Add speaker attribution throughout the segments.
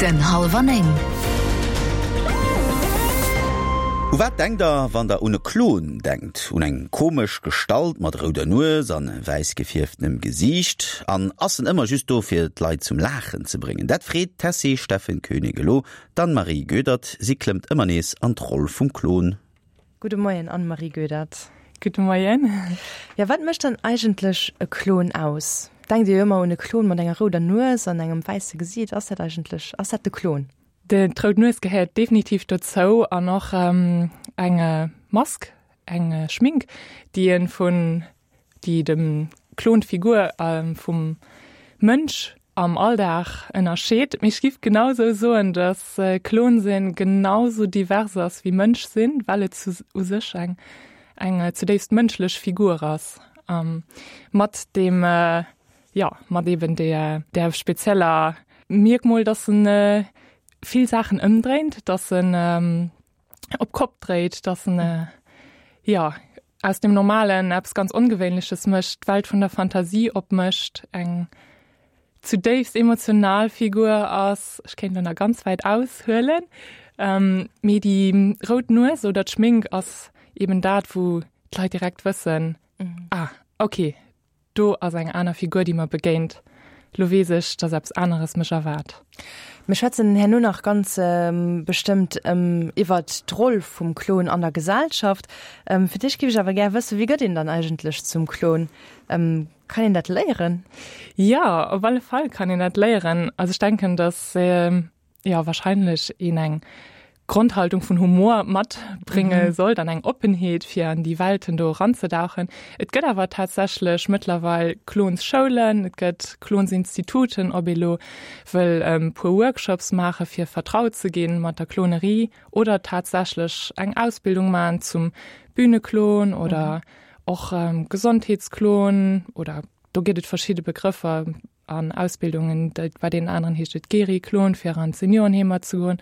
Speaker 1: Den Hallwer 9.
Speaker 2: U wat denkt der, wann der un e Klon denkt? Un eng komesch Gestalt mat rouder Nues an wäiss gefierftenem Gesiicht? An ass en ëmmer just do fir d'Leit zum Laachen ze bréngen? Dat freet d'Tessy Steffen Koenig elo d'Anne-Marie Goedert. Si klëmmt ëmmer nees an d'Roll vum Klon.
Speaker 3: Gudde Moien Anne-Marie Goedert.
Speaker 4: Gudde Moien.
Speaker 3: Jo, wat mécht dann eigentlech e Klon aus? Denkt Dir jo ëmmer un e Klon mat enger rouder Nues an engem wäisse Gesiit. Ass dat eigentlech, ass dat de Klon?
Speaker 4: D'rout Nues gehéiert definitiv dozou an och eng Mask, eng Schmink, déi e vun déi dem Klon d'Figur vum Mënsch am Alldag ënnerscheet. Mee ech giff genau sou soen, dass Klon sinn genau sou divers ass wéi Mënsch sinn, well et u sech eng eng zudéifst mënschlech Figur ass, mat deem, jo, mat eben där där spezieller Mierkmol, dass en vill Saachen ëmdréint, dass en op d'Kopp dréit, dass en jo aus dem Normalen eppes ganz Ongewéinleches mécht, d'Welt vun der Fantasie opmécht, eng zudéifst emotional Figur ass. Ech kéint elo nach ganz wäit aushuelen, mee déi rout Nues oder d'Schmink ass eben dat, wou d'Leit direkt wëssen, ah okay, Do ass eng aner Figur, déi mer begéint. Lo weess ech, dass eppes aneres mech erwaart.
Speaker 3: Mir schwätzen herno nach ganz bestëmmt iwwert d'Roll vum Klon an der Gesellschaft. Fir d'éischt géif ech awer gär wëssen, Wéi gëtt een dann eigentlech zum Klon? Kann een dat léieren?
Speaker 4: Jo, op alle Fall kann een dat léieren. Also ech denken, dass jo wahrscheinlech een eng Grondhaltung vun Humor matbrénge mhm. sollt an eng Oppenheet fir an déi Welten do eranzedauchen. Et gëtt awer tatsächlech mëttlerweil Klonsschoulen, et gëtt Klonsinstituten, ob ee lo wëll ähm, puer Workshops maache fir vertraut ze ginn mat der Klonerie oder tatsächlech eng Ausbildung maachen zum Bühneklon oder mhm. och ähm, Gesondheetsklon oder do gëtt et verschidde Begrëffer an Ausbildungen, bei deenen aneren heescht et Geri-Klon, fir an d'Seniorenheemer ze goen.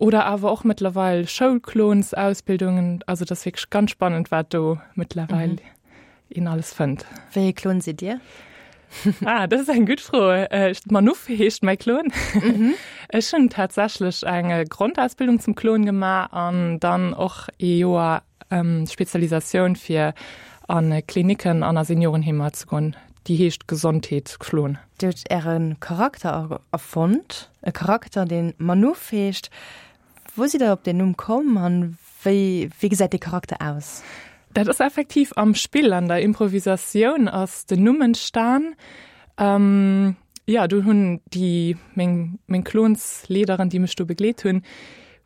Speaker 4: Oder awer och mëttlerweil Schoulklonsausbildungen. Also dat ass wierklech ganz spannend, wat do mëttlerweil mhm. een alles fënnt.
Speaker 3: Wéi ee Klon sidd Dir?
Speaker 4: Ah, dat ass eng gutt Fro. Äh, Manuff heescht mäi Klon. Mhm. Ech hunn tatsächlech eng äh, Grondausbildung zum Klon gemaach an dann och ee Joer Spezialisatioun fir a Klinicken an a Seniorenheemer ze goen. Déi heescht Gesondheetsklon.
Speaker 3: Dir hutt Äre Charakter erfonnt, e Charakter, dee Manuff heescht. Wou sidd Der op deen Numm komm an wéi wéi gesäit dee Charakter aus?
Speaker 4: Dat ass effektiv am Spill, an der Improvisatioun ass den Numm entstan. Jo, do hunn déi meng meng Klonsleaderen, déi mech do begleet hunn,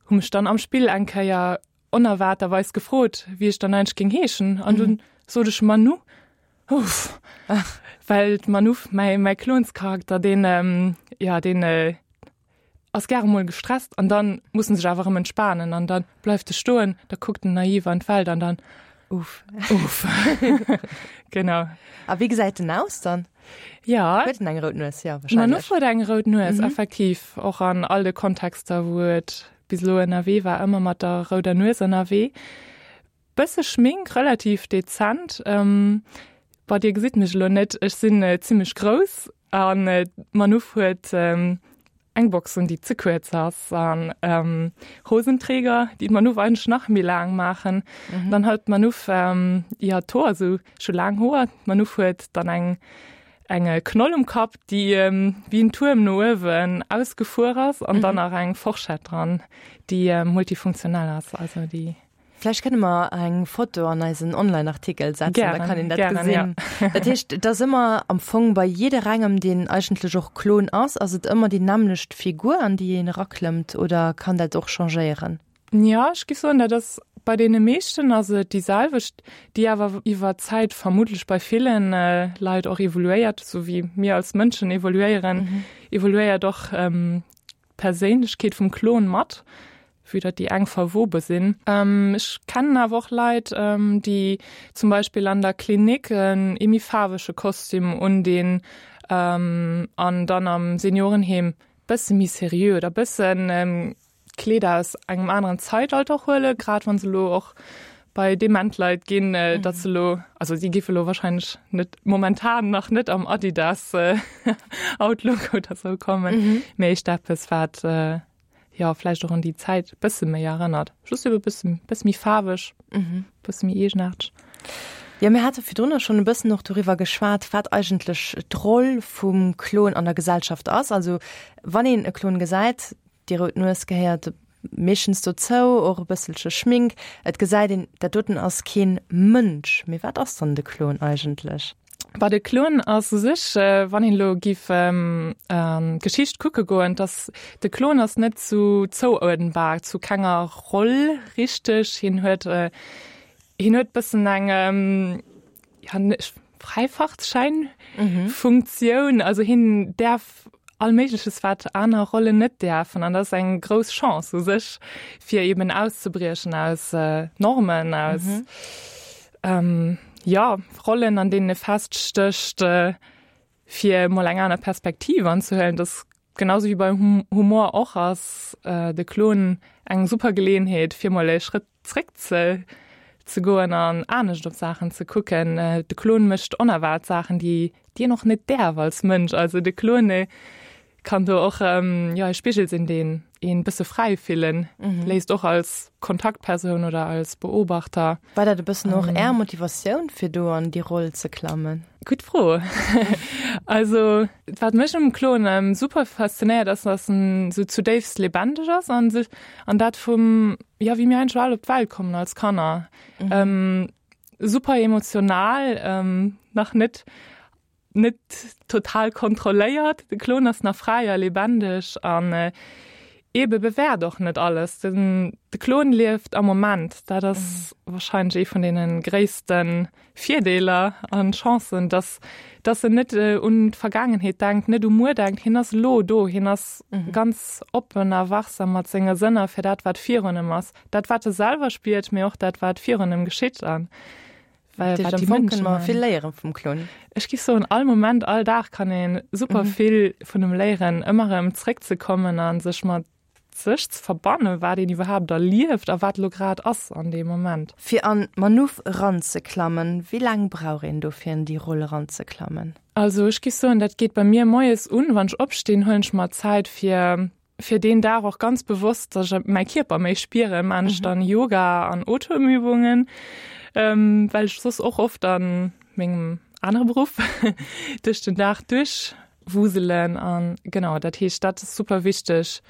Speaker 4: hu mech dann am Spill eng Kéier onerwaarterweis gefrot, wéi ech dann eigentlech géing heeschen. An dunn sot ech Manou. Uff. Well d'Manou, mäi, mäi Klonscharakter, deen, ähm, ja, deen äh, ass gäre mol gestresst an dann muss en sech awer erëm entspanen an dann bleift e stoen, da kuckt en naiv an d'Welt an dann
Speaker 3: Uff.
Speaker 4: Uff. Genau.
Speaker 3: A wéi gesäit en aus dann?
Speaker 4: Ja.
Speaker 3: Huet en eng rout Nues? Ja, wahrscheinlech.
Speaker 4: Manou huet eng rout Nues, mhm. effektiv. Och an all de Kontexter, wou et bis elo ënnerwee war, ëmmer mat der rouder Nues ënnerwee. Bësse Schmink, relativ dezent. Bon, dir gesitt mech elo net, ech sinn zimmlech grouss an d'Manouf huet eng Box un, déi ze kuerz ass an Hosenträger, déi d'Manouf eigentlech nach méi laang maachen. Dann huet d'Manouf, jo, d'Hoer esou, ech hu laang Hoer, d'Manouf huet dann eng Eng Knoll um Kapp, déi wéi en Tuerm no uewen ausgefuer ass an dann nach eng Forschett dran, déi multifunktionell ass, also déi.
Speaker 3: Vläicht kënne mer eng Foto an eisen Online-Artikel setzen, da kann een dat gesinn. Dat heescht, et ass ëmmer am Fong bei jidderengem, deen eigentlech och Klon ass, ass et ëmmer déi nämmlecht Figur, an déi een eraklëmmt oder kann dat och changéieren?
Speaker 4: Jo, ech géif soen, dat ass bei deene meeschten ass et déi selwecht, déi awer iwwer d'Zäit vermuttlech bei ville Leit och evoluéiert, esou wéi mir als Mënschen evoluéieren, evoluéiert och d'Perséinlechkeet vum Klon mat, vue datt déi eng verwobe sinn. Ech kennen awer och Leit, déi zum Beispill an der Klinik en ee méi faarwege Kostüm undinn an dann am Seniorenheem bësse méi seriö oder bëssen Kleeder aus engem aneren Zäitalter huelen, grad wann se elo och bei dement Leit ginn, datt se elo, also si géife elo wahrscheinlech net momentan nach net am Adidas Outlook oder sou kommen, mee éischter eppes wat jo vläicht och un déi Zäit e bësse méi erënnert, just ebe bësse bësse méi faarweg, bësse méi eegenaarteg.
Speaker 3: Jo, mir hate virdrunner schonn e bëssen och doriwwer geschwat, wat eigentlech d'Roll vum Klon an der Gesellschaft ass. Also wann een e Klon gesäit, déi rout Nues gehéiert meeschtens dozou, och e bësselche Schmink, et gesäit een, dat doten ass keen Mënsch. Mee wat ass dann de Klon eigentlech?
Speaker 4: Bah, de Klon ass u sech, wann een elo giff an d'Geschicht kucke goen, dass de Klon ass net zu zouuerdenbar zu kenger Roll richteg. Hien huet, hien huet bëssen eng, ja, Fräifahrtschäin-Funktioun. Also hien däerf all Méigleches, wat aner Rollen net däerfen. An dat ass eng grouss Chance u sech, fir eben auszebriechen aus Normen, aus jo, Rollen, an deenen e feststécht, fir emol eng aner Perspektiv anzehuelen. Dass genauso wéi beim Humor och ass de Klon eng super Geleeënheet, fir mol e Schrëtt zréck ze ze goen an anescht op Saachen ze kucken. De Klon mécht onerwaart Saachen, déi déi een och net däerf als Mënsch. Also de Klon kann do och jo e Spigel sinn, deen een bësse fräi fillen léisst, och als Kontaktpersoun oder als Beobachter.
Speaker 3: War dat e bëssen och Är Motivatioun, fir do an déi Roll ze klammen?
Speaker 4: Gutt Fro. Also wat mech um Klon super faszinéiert ass, dass en sou zudéifst lebendig ass an sech an dat vum jo wéi mir eigentlech all op d'Welt kommen als Kanner. Super emotional, nach net net total kontrolléiert. De Klon ass nach fräi a lebendig an eebe bewäert och net alles. Den de Klon lieft am Moment. Dat ass wahrscheinlech ee vun deene gréisste Virdeeler an Chancen, dass dass en net un d'Vergaangenheet denkt, net u muer denkt. Hien ass elo do. Hien ass ganz oppen a wachsam mat senge Sënner fir dat, wat virun em ass. Dat, wat e selwer spiert, mee och dat, wat virun em geschitt. An
Speaker 3: Well wat déi Mënschen mer vill léieren vum Klon.
Speaker 4: Ech giff soen all Moment, all Dag kann een super mhm. vill vun em léieren, ëmmer erëm zréckzekommen an sech mat sech ze verbannen, wat een iwwerhaapt erlieft a wat lo grad ass an deem Moment.
Speaker 3: Fir an d'Manuff eranzeklammen, wéi laang brauch een do fir an déi Roll eranzeklammen?
Speaker 4: Also ech giff soen, dat geet bei mir moies un, wann ech opstinn, huelen ech mer Zäit fir fir deen Dag och ganz bewosst, dass ech mäi Kierper méi spieren, maan ech dann Yoga an Otemübungen, well ech soss och oft an mengem anere Beruff duerch den Dag duerchwuselen an genau, dat heescht dat ass super wichteg,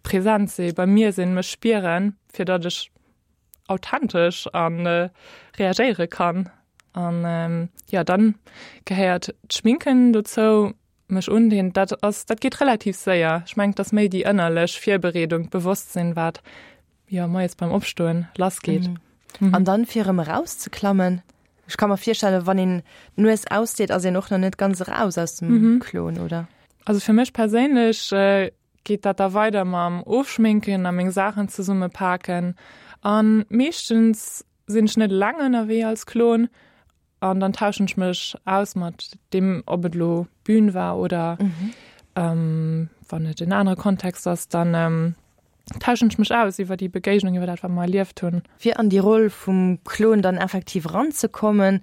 Speaker 4: präsent si, bei mir sinn, mech spieren, fir datt ech authentesch an reagéiere kann an jo dann gehéiert d'Schminken dozou. Mech undinn, dat ass, dat geet relativ séier. Ech mengen, et ass méi déi ënnerlech Virbereedung, d'Bewosstsinn, wat, jo, moies beim Opstoen lassgeet.
Speaker 3: Mhm. An dann, fir erëm erauszeklammen? Ech ka mer virstellen, wann een d'Nues ausdeet, ass een och nach net ganz eraus aus dem Klon, oder?
Speaker 4: Also fir mech perséinlech geet dat da weider mam Ofschminken a meng Saachen zesummepaken. A meeschtens sinn ech net eleng ënnerwee als Klon. An dann tauschen ech mech aus mat deem, ob et elo Bühn war oder mhm. ähm, wann et en anere Kontext ass, dann ähm, tauschen ech mech aus iwwer déi Begéignung, iwwer dat wat mer erlieft hunn.
Speaker 3: Fir an déi Roll vum Klon dann effektiv ranzekommen,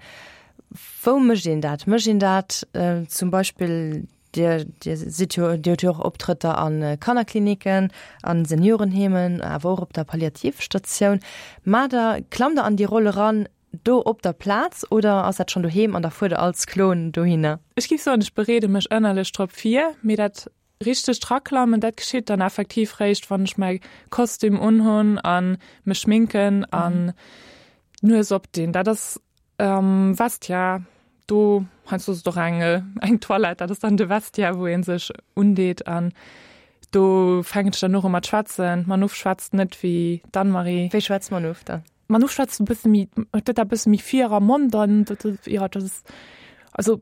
Speaker 3: wou mécht een dat? Mécht een dat äh, zum Beispill Dir, Dir sidd jo, Dir hutt jo och Optrëtter a Kannerkliniken, a Seniorenheemen, awer och op der Palliativstatioun. Maacht Der, klammt Der an déi Roll eran, Do op der Plaz oder ass dat schonn doheem an da fuert der als Klon dohinner?
Speaker 4: Ech géif soen, ech bereede mech ënnerlech drop vir, mee dat richtegt Raklammen, dat geschitt dann effektiv réischt, wann ech mäi Kostüm unhunn a mech schminken an d'Nues opdinn. Dat ass am Vestiaire, do, heiansdo ass et och eng eng Toilette, dat ass dann de Vestiaire, wou ee sech undeet an do fänken ech dann och u mat schwätzen. D'Manouf schwätzt net wéi d'Anne-Marie.
Speaker 3: Wéi schwätzt d'Manouf dann?
Speaker 4: Manu schwätzt e bësse méi, huet dat e bësse méi vir am Mond an dat, ja, dat ass, also,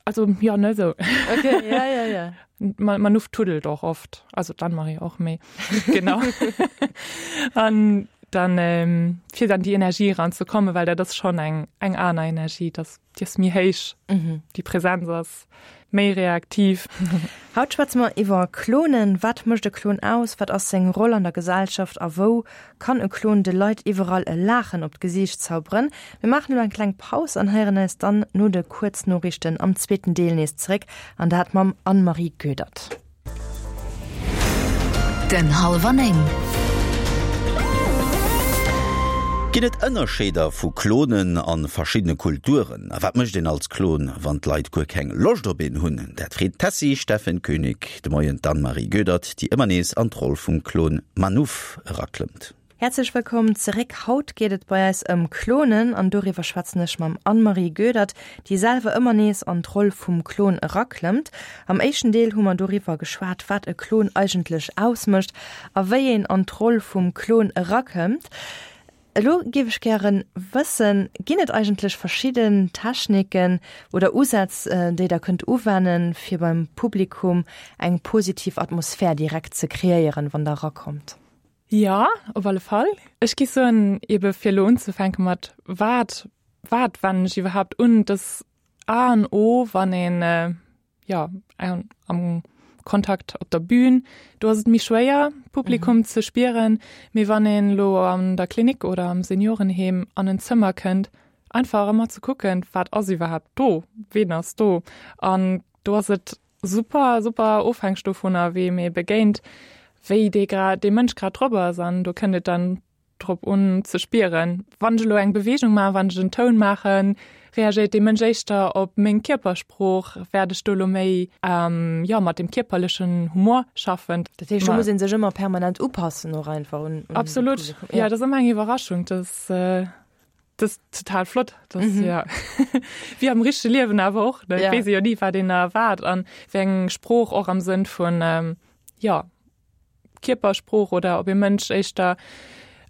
Speaker 4: also, ja, ne, sou.
Speaker 3: Okay, ja, ja, ja.
Speaker 4: Manu tuddelt och oft, also d'Anne-Marie och, mee genau. An dann, ähm, fir dann déi Energie eranzekommen, well dat ass schonn eng, eng aner Energie, dat ass, déi ass méi héich, déi Präsenz ass. méi reaktiv.
Speaker 3: Haut schwätze mer iwwer Klonen. Wat mécht e Klon aus? Wat ass seng Roll an der Gesellschaft? A wou kann e Klon de Leit iwwerall e Laachen op d'Gesiicht zauberen? Mir maachen elo eng kleng Paus an héieren eis dann no de Kuerznoriichten am zweeten Deel nees zeréck, an dat mam Anne-Marie Goedert.
Speaker 2: Den Hallwer 9. Ginn et Ënnerscheeder vu Klonen a verschiddene Kulturen? A wat mécht een als Klon, wann d'Leit guer keng Loscht op een hunn? Dat freet d'Tessy Steffen Koenig de Moien d'Anne-Marie Goedert, déi ëmmer nees an d'Roll vum Klon Manouf eraklëmmt.
Speaker 3: Häerzlech wëllkomm zeréck. Haut geet et bei eis ëm Klonen an doriwwer schwätzen ech mam Anne-Marie Goedert, déi selwer ëmmer nees an d'Roll vum Klon eraklëmmt. Am éischten Deel hu mer doriwwer geschwat, wat e Klon eigentlech ausmécht a wéi een an d'Roll vum Klon erakëmmt. Elo géif ech gären wëssen, ginn et eigentlech verschidden Techniken oder Usätz, déi der kënnt uwennen, fir beim Publikum eng positiv Atmosphär direkt ze kreéieren, wann der erakommt?
Speaker 4: Jo, op alle Fall. Ech gi soen, ebe fir elo unzefänke mat wat, wat wennen ech iwwerhaapt un, dass A an O, wann een, jo, am Kontakt op der Bühn, do ass et méi schwéier, d'Publikum ze spieren, mee wann een elo an der Klinik oder am Seniorenheem an en Zëmmer kënnt, einfach ëmmer ze kucken, wat ass iwwerhaapt do, ween ass do an do ass et Super, super ofhängeg dovunner, weem ee begéint, wéi dee grad, dee Mënsch grad drop ass. An do kënnt et dann drop un ze spieren, wann ech elo eng Beweegung maachen, wann ech en Toun maachen, reagéiert dee Mënsch éischter op meng Kierpersprooch, wäert ech do elo méi, jo, mat dem kierperlechen Humor schaffen.
Speaker 3: Dat heescht, do muss ee sech ëmmer permanent upassen och einfach un
Speaker 4: de Absolut, jo, dat ass ëmmer eng Iwwerraschung, dass. Das ist total flott das, mhm. ja. wie am richtige Liewen awer och ne? ja. wees jo nie wat den erwart an wéi eng Sprooch och am Sënn vun ähm, ja Kierpersprooch oder ob e Mënsch éischter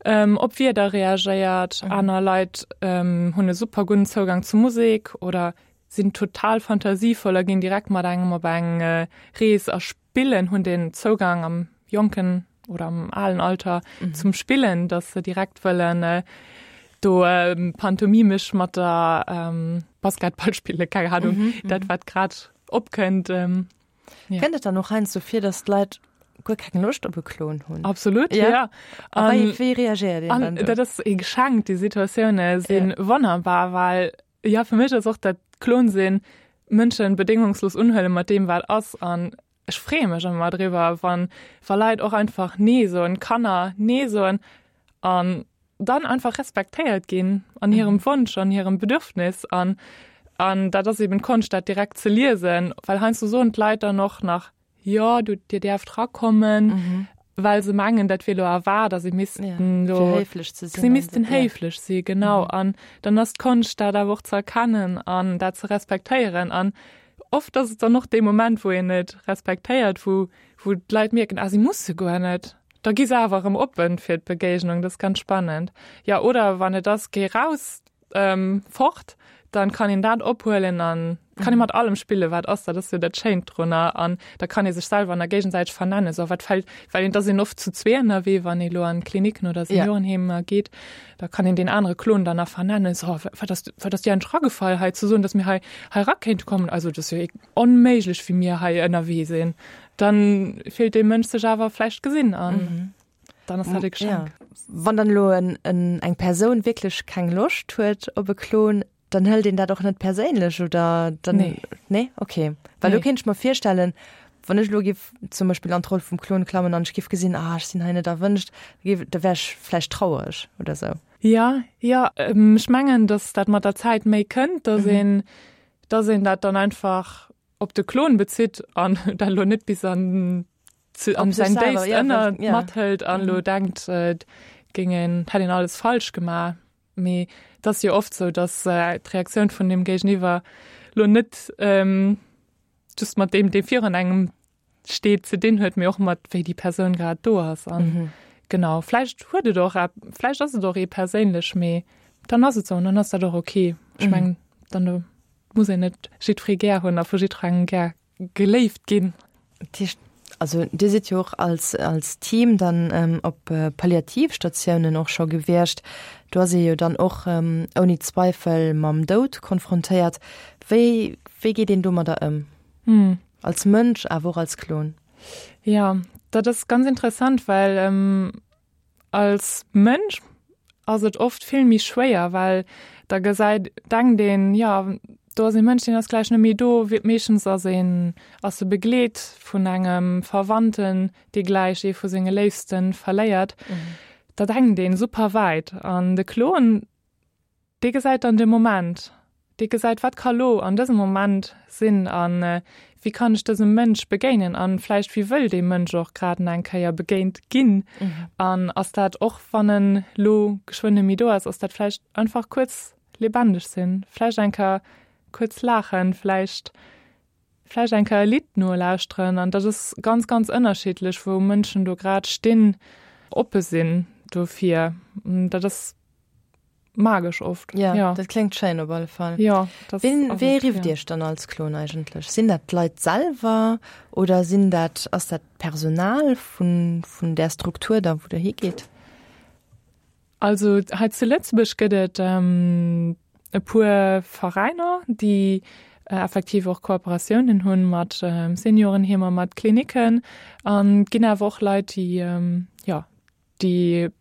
Speaker 4: ähm, op Wierder reagéiert mhm. aner Leit ähm, hunn e super guten Zougang zu Musik oder sinn total fantasievoll a ginn direkt mat engem op eng äh, Rees a Spillen, hunn den Zougang am jonken oder am alen Alter mhm. zum Spillen, dass se direkt wëllen äh, do ähm, pantomimisch mat der ähm, Basketball spille keine Ahnung, mhm, mhm. dat wat grad opkënnt. Ähm,
Speaker 3: ja. Kënnt et dann och heiansdo vir, dass d'Leit guer keng Loscht op e Klon hunn?
Speaker 4: Absolut, ja. ja.
Speaker 3: A wéi, wéi reagéiert een dann
Speaker 4: do? Dat ass e Geschenk, déi Situatioune sinn ja. wonnerbar, well ja fir mech ass och dat Klon sinn Mënschen bedéngungslos unhuelen mat deem wat ass an ech freeë mech ëmmer driwwer wann wa Leit och einfach nee soen, Kanner nee soen an dann einfach respektéiert ginn an hirem mhm. Wonsch an hirem Bedürfnis an an dat ass eben d'Konscht dat direkt ze liesen, well heiansdo soen d'Leit dann och nach Jo, du, dir däerft rakommen, mhm. well se mengen, dat wier lo erwaart a se missten ja, lo
Speaker 3: héiflech ze
Speaker 4: sinn. Se missten héiflech ja. si genau mhm. an dann ass d'Konscht dat awer och ze erkennen an dat ze respektéieren an oft ass et dann och dee Moment, wou een et respektéiert, wou wou d'Leit mierken, ah, si musse guer net. Da gi se awer erëm oppen fir d'Begéignung, dat ass ganz spannend. Ja oder wann et ass, géi raus, ähm, fort, dann kann een dat ophuelen an kann ee mat allem spillen, wat ass, dat ass jo dat Schéint drunner an da kann ee sech selwer an der géigesäiteg vernennen, so wat fällt, well een, da sinn oft zu zwee ënnerwee, wann ee lo an Kliniken oder Seniorenheemer geet, da kann een deen anere Klon dann nach vernennen, so wat ass, wat ass dir eigentlech ragefall hei ze soen, dass mir hei hei ra kéinte kommen, also dat ass jo onméiglech wéi mir hei ënnerwee sinn. Dann fillt dee Mënsch sech awer vläicht gesinn an. Dann ass dat e Geschenk.
Speaker 3: Ja. Wann dann elo en, en, eng Persoun wierklech keng Loscht huet op e Klon, dann hëlt een dat och net perséinlech oder dann
Speaker 4: Nee.
Speaker 3: Nee? Okay. Well do
Speaker 4: Nee.
Speaker 3: kéint ech mer virstellen, wann ech elo giff zum Beispill an d'Roll vum Klon klammen an ech giff gesinn, ah ech sinn hei net erwënscht, da giff, da wär ech vläicht trauereg oder sou.
Speaker 4: Ja, ja, ech mengen, dass dat mat der Zäit méi kënnt, dass een, dass een dat dann einfach op de Klon bezitt an dat elo net bis an an säin déifst Ënner mathëlt an elo denkt, et géing een, hätt een alles falsch gemaach. Mee et ass jo oft sou, datt d'Reaktioun vun deem Géigeniwwer elo net just mat deem, dee virun engem steet, ze dinn huet, mee och mat wéi déi Persoun grad do ass. An genau, vläicht huet et och, vläicht ass et och ee perséinlech, mee dann ass et sou an dann ass dat och ok. Ech mengen, dann muss een net jiddweree gär hunn a vu jiddwerengem gär geléift ginn.
Speaker 3: Dat heescht, also Dir sidd jo och als, als Team dann op Palliativstatiounen och scho gewiescht. Do ass ee jo dann och ouni Zweifel mam Doud konfrontéiert. Wéi, wéi geet een domadder ëm? Als Mënsch, awer och als Klon?
Speaker 4: Jo, dat ass ganz interessant, well als Mënsch ass et oft vill méi schwéier, well da gesäit, denkt een, jo, do ass ee Mënsch, deen ass gläich net méi do. Meeschtens ass een, ass e begleet vun engem Verwandten, dee gläich ee vu senge Léifste verléiert. Da denkt een super wäit an de Klon, Dee gesäit dann de Moment. Dee gesäit, wat ka lo an dësem Moment sinn a wéi kann ech dësem Mënsch begéinen a vläicht wéi wëll dee Mënsch och grad nach eng Kéier begéint ginn. An ass dat, och wann en lo geschwënn net méi do ass, ass dat vläicht einfach kuerz lebendig sinn, vläicht eng Kéier kuerz laachen, vläicht vläicht eng Kéier e Lidd nolauschteren. An dat ass ganz, ganz ënnerschiddlech, wou Mënschen do grad stinn, oppe sinn dofir. Dat ass magesch oft.
Speaker 3: Ja, ja. Dat kléngt schéin op alle Fall.
Speaker 4: Ja,
Speaker 3: das Wien, wee rifft ja. Iech dann als Klon eigentlech? Sinn dat d'Leit selwer oder sinn dat ass dat d'Personal vun, vun där Struktur da wou der higeet?
Speaker 4: Also hei zu Lëtzebuerg gëtt et ähm, e puer Veräiner, déi äh, effektiv och Kooperatiounen hunn mat ähm, Seniorenheemer, mat Kliniken an ginn awer och Leit, déi ähm, ja, déi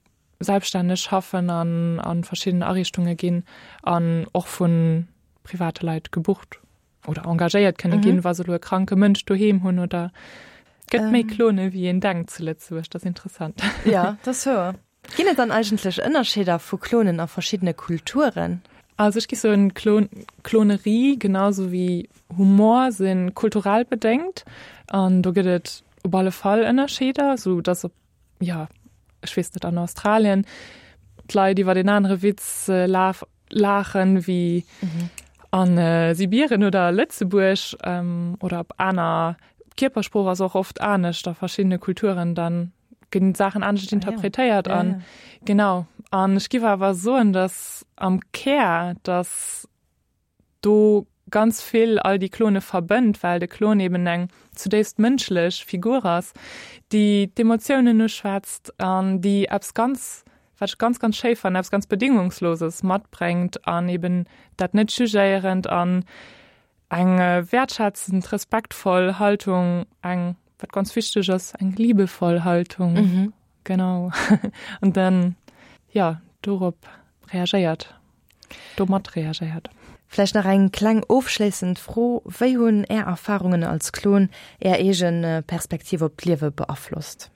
Speaker 4: selbststänneg schaffen an a verschidden Ariichtunge ginn an och vu private Leit gebucht oder engagéiert kënne mhm. ginn, wa se lo e kranke Mënsch doheem hunn oder gëtt méi ähm. Klone wéi een denkt zu Lëtzebuerg, dat ass interessant.
Speaker 3: Ja, dat ass wouer. Ginn et dann eigentlech Ënnerscheeder vu Klonen a verschiddene Kulturen?
Speaker 4: Also ech gi soen, Klon Klonerie genauso wéi Humor si kulturell bedéngt an do gëtt et op alle Fall Ënnerscheeder, sou datt op ja, ech weess net, an Australien d'Leit iwwer en anere Witz äh, laf, laachen wéi mhm. an äh, Sibirien oder Lëtzebuerg ähm, oder op aner Kierpersprooch ass och oft anescht a verschiedene Kulturen dann ginn Saachen anescht ah, interpretéiert an ja, ja. genau an ech giff awer soen, dass am Kär dass do ganz vill all déi Klone verbënnt, well de Klon eben eng zudéifst mënschlech Figur ass, déi d'Emotiounen uschwätzt an déi eppes ganz, wat ech ganz, ganz schéi fannen, eppes ganz Bedingungsloses matbréngt an eben dat net jugéierend an eng wäertschätzend, respektvoll Haltung, eng, wat ganz wichteg ass, eng liebevoll Haltung, genau, an dann, jo, dorop reagéiert. Domat reagéiert.
Speaker 3: Vläicht nach eng kleng ofschléissend Fro, Wéi hunn Är Erfarungen als Klon Är eege Perspektiv op d'Liewe beaflosst?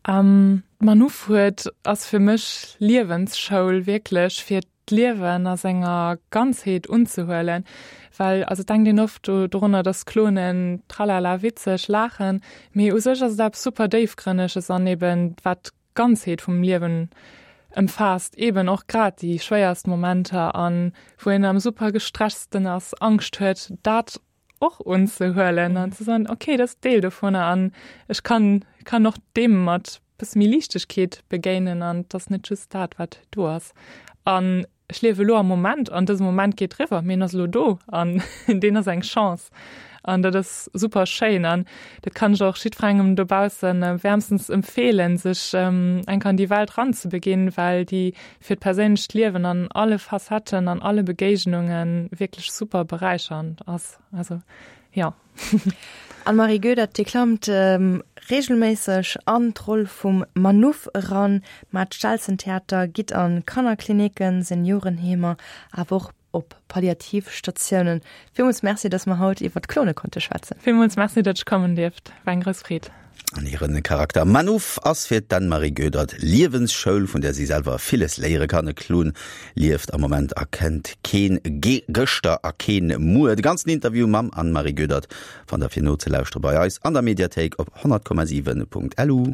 Speaker 4: D'Manouf huet ass fir mech Liewensschoul, wierklech fir d'Liewen a senger Ganzheet unzehuelen. Well also et denkt een oft dorunner, dass Klonen tralala witzeg laachen, mee u sech ass et eppes super déifgrënneges an eben wat Ganzheet vum Liewen ëmfaasst, eben och grad déi schwéierst Momenter an wou een am super gestressten ass, Angscht huet, dat och unzehuelen an ze soen, okay, dat ass Deel dovunner an ech kann kann och deem mat bësse méi Liichtegkeet begéinen an et ass net just dat, wat do ass. An Ech liewe elo am Moment an dëse Moment geet eriwwer, mee en ass elo do an deen ass eng Chance an dat ass super schéin an dat kann ech och jiddwerengem dobausse wäermstens empfeelen, sech eng Kéier an déi Welt ranzebeginn, well déi fir d'perséinlecht Liewen an alle Facetten, an alle Begéignunge wierklech super beräichernd ass. Also jo.
Speaker 3: Anne-Marie Goedert, Dir klammt reegelméisseg an d'Roll vum Manouf eran, mä d'Stelzentheater gitt a Kannerklinicken, Seniorenheemer, awer och op Palliativstatiounen. Villmools Merci, datt mer haut iwwer d'Klone konnte schwätzen.
Speaker 4: Villmools Merci, datt ech kommen dierft. War eng grouss Freed.
Speaker 2: An hiren Charakter Manouf ass fir d'Anne-Marie Goedert Liewensschoul, vun där si selwer villes léiere kann. E Klon lieft am Moment a kennt keen Gëschter a keen Muer. De ganzen Interview mam Anne-Marie Goedert fannt der fir nozelauschtere bei eis an der Mediathéik op 100,7.lu.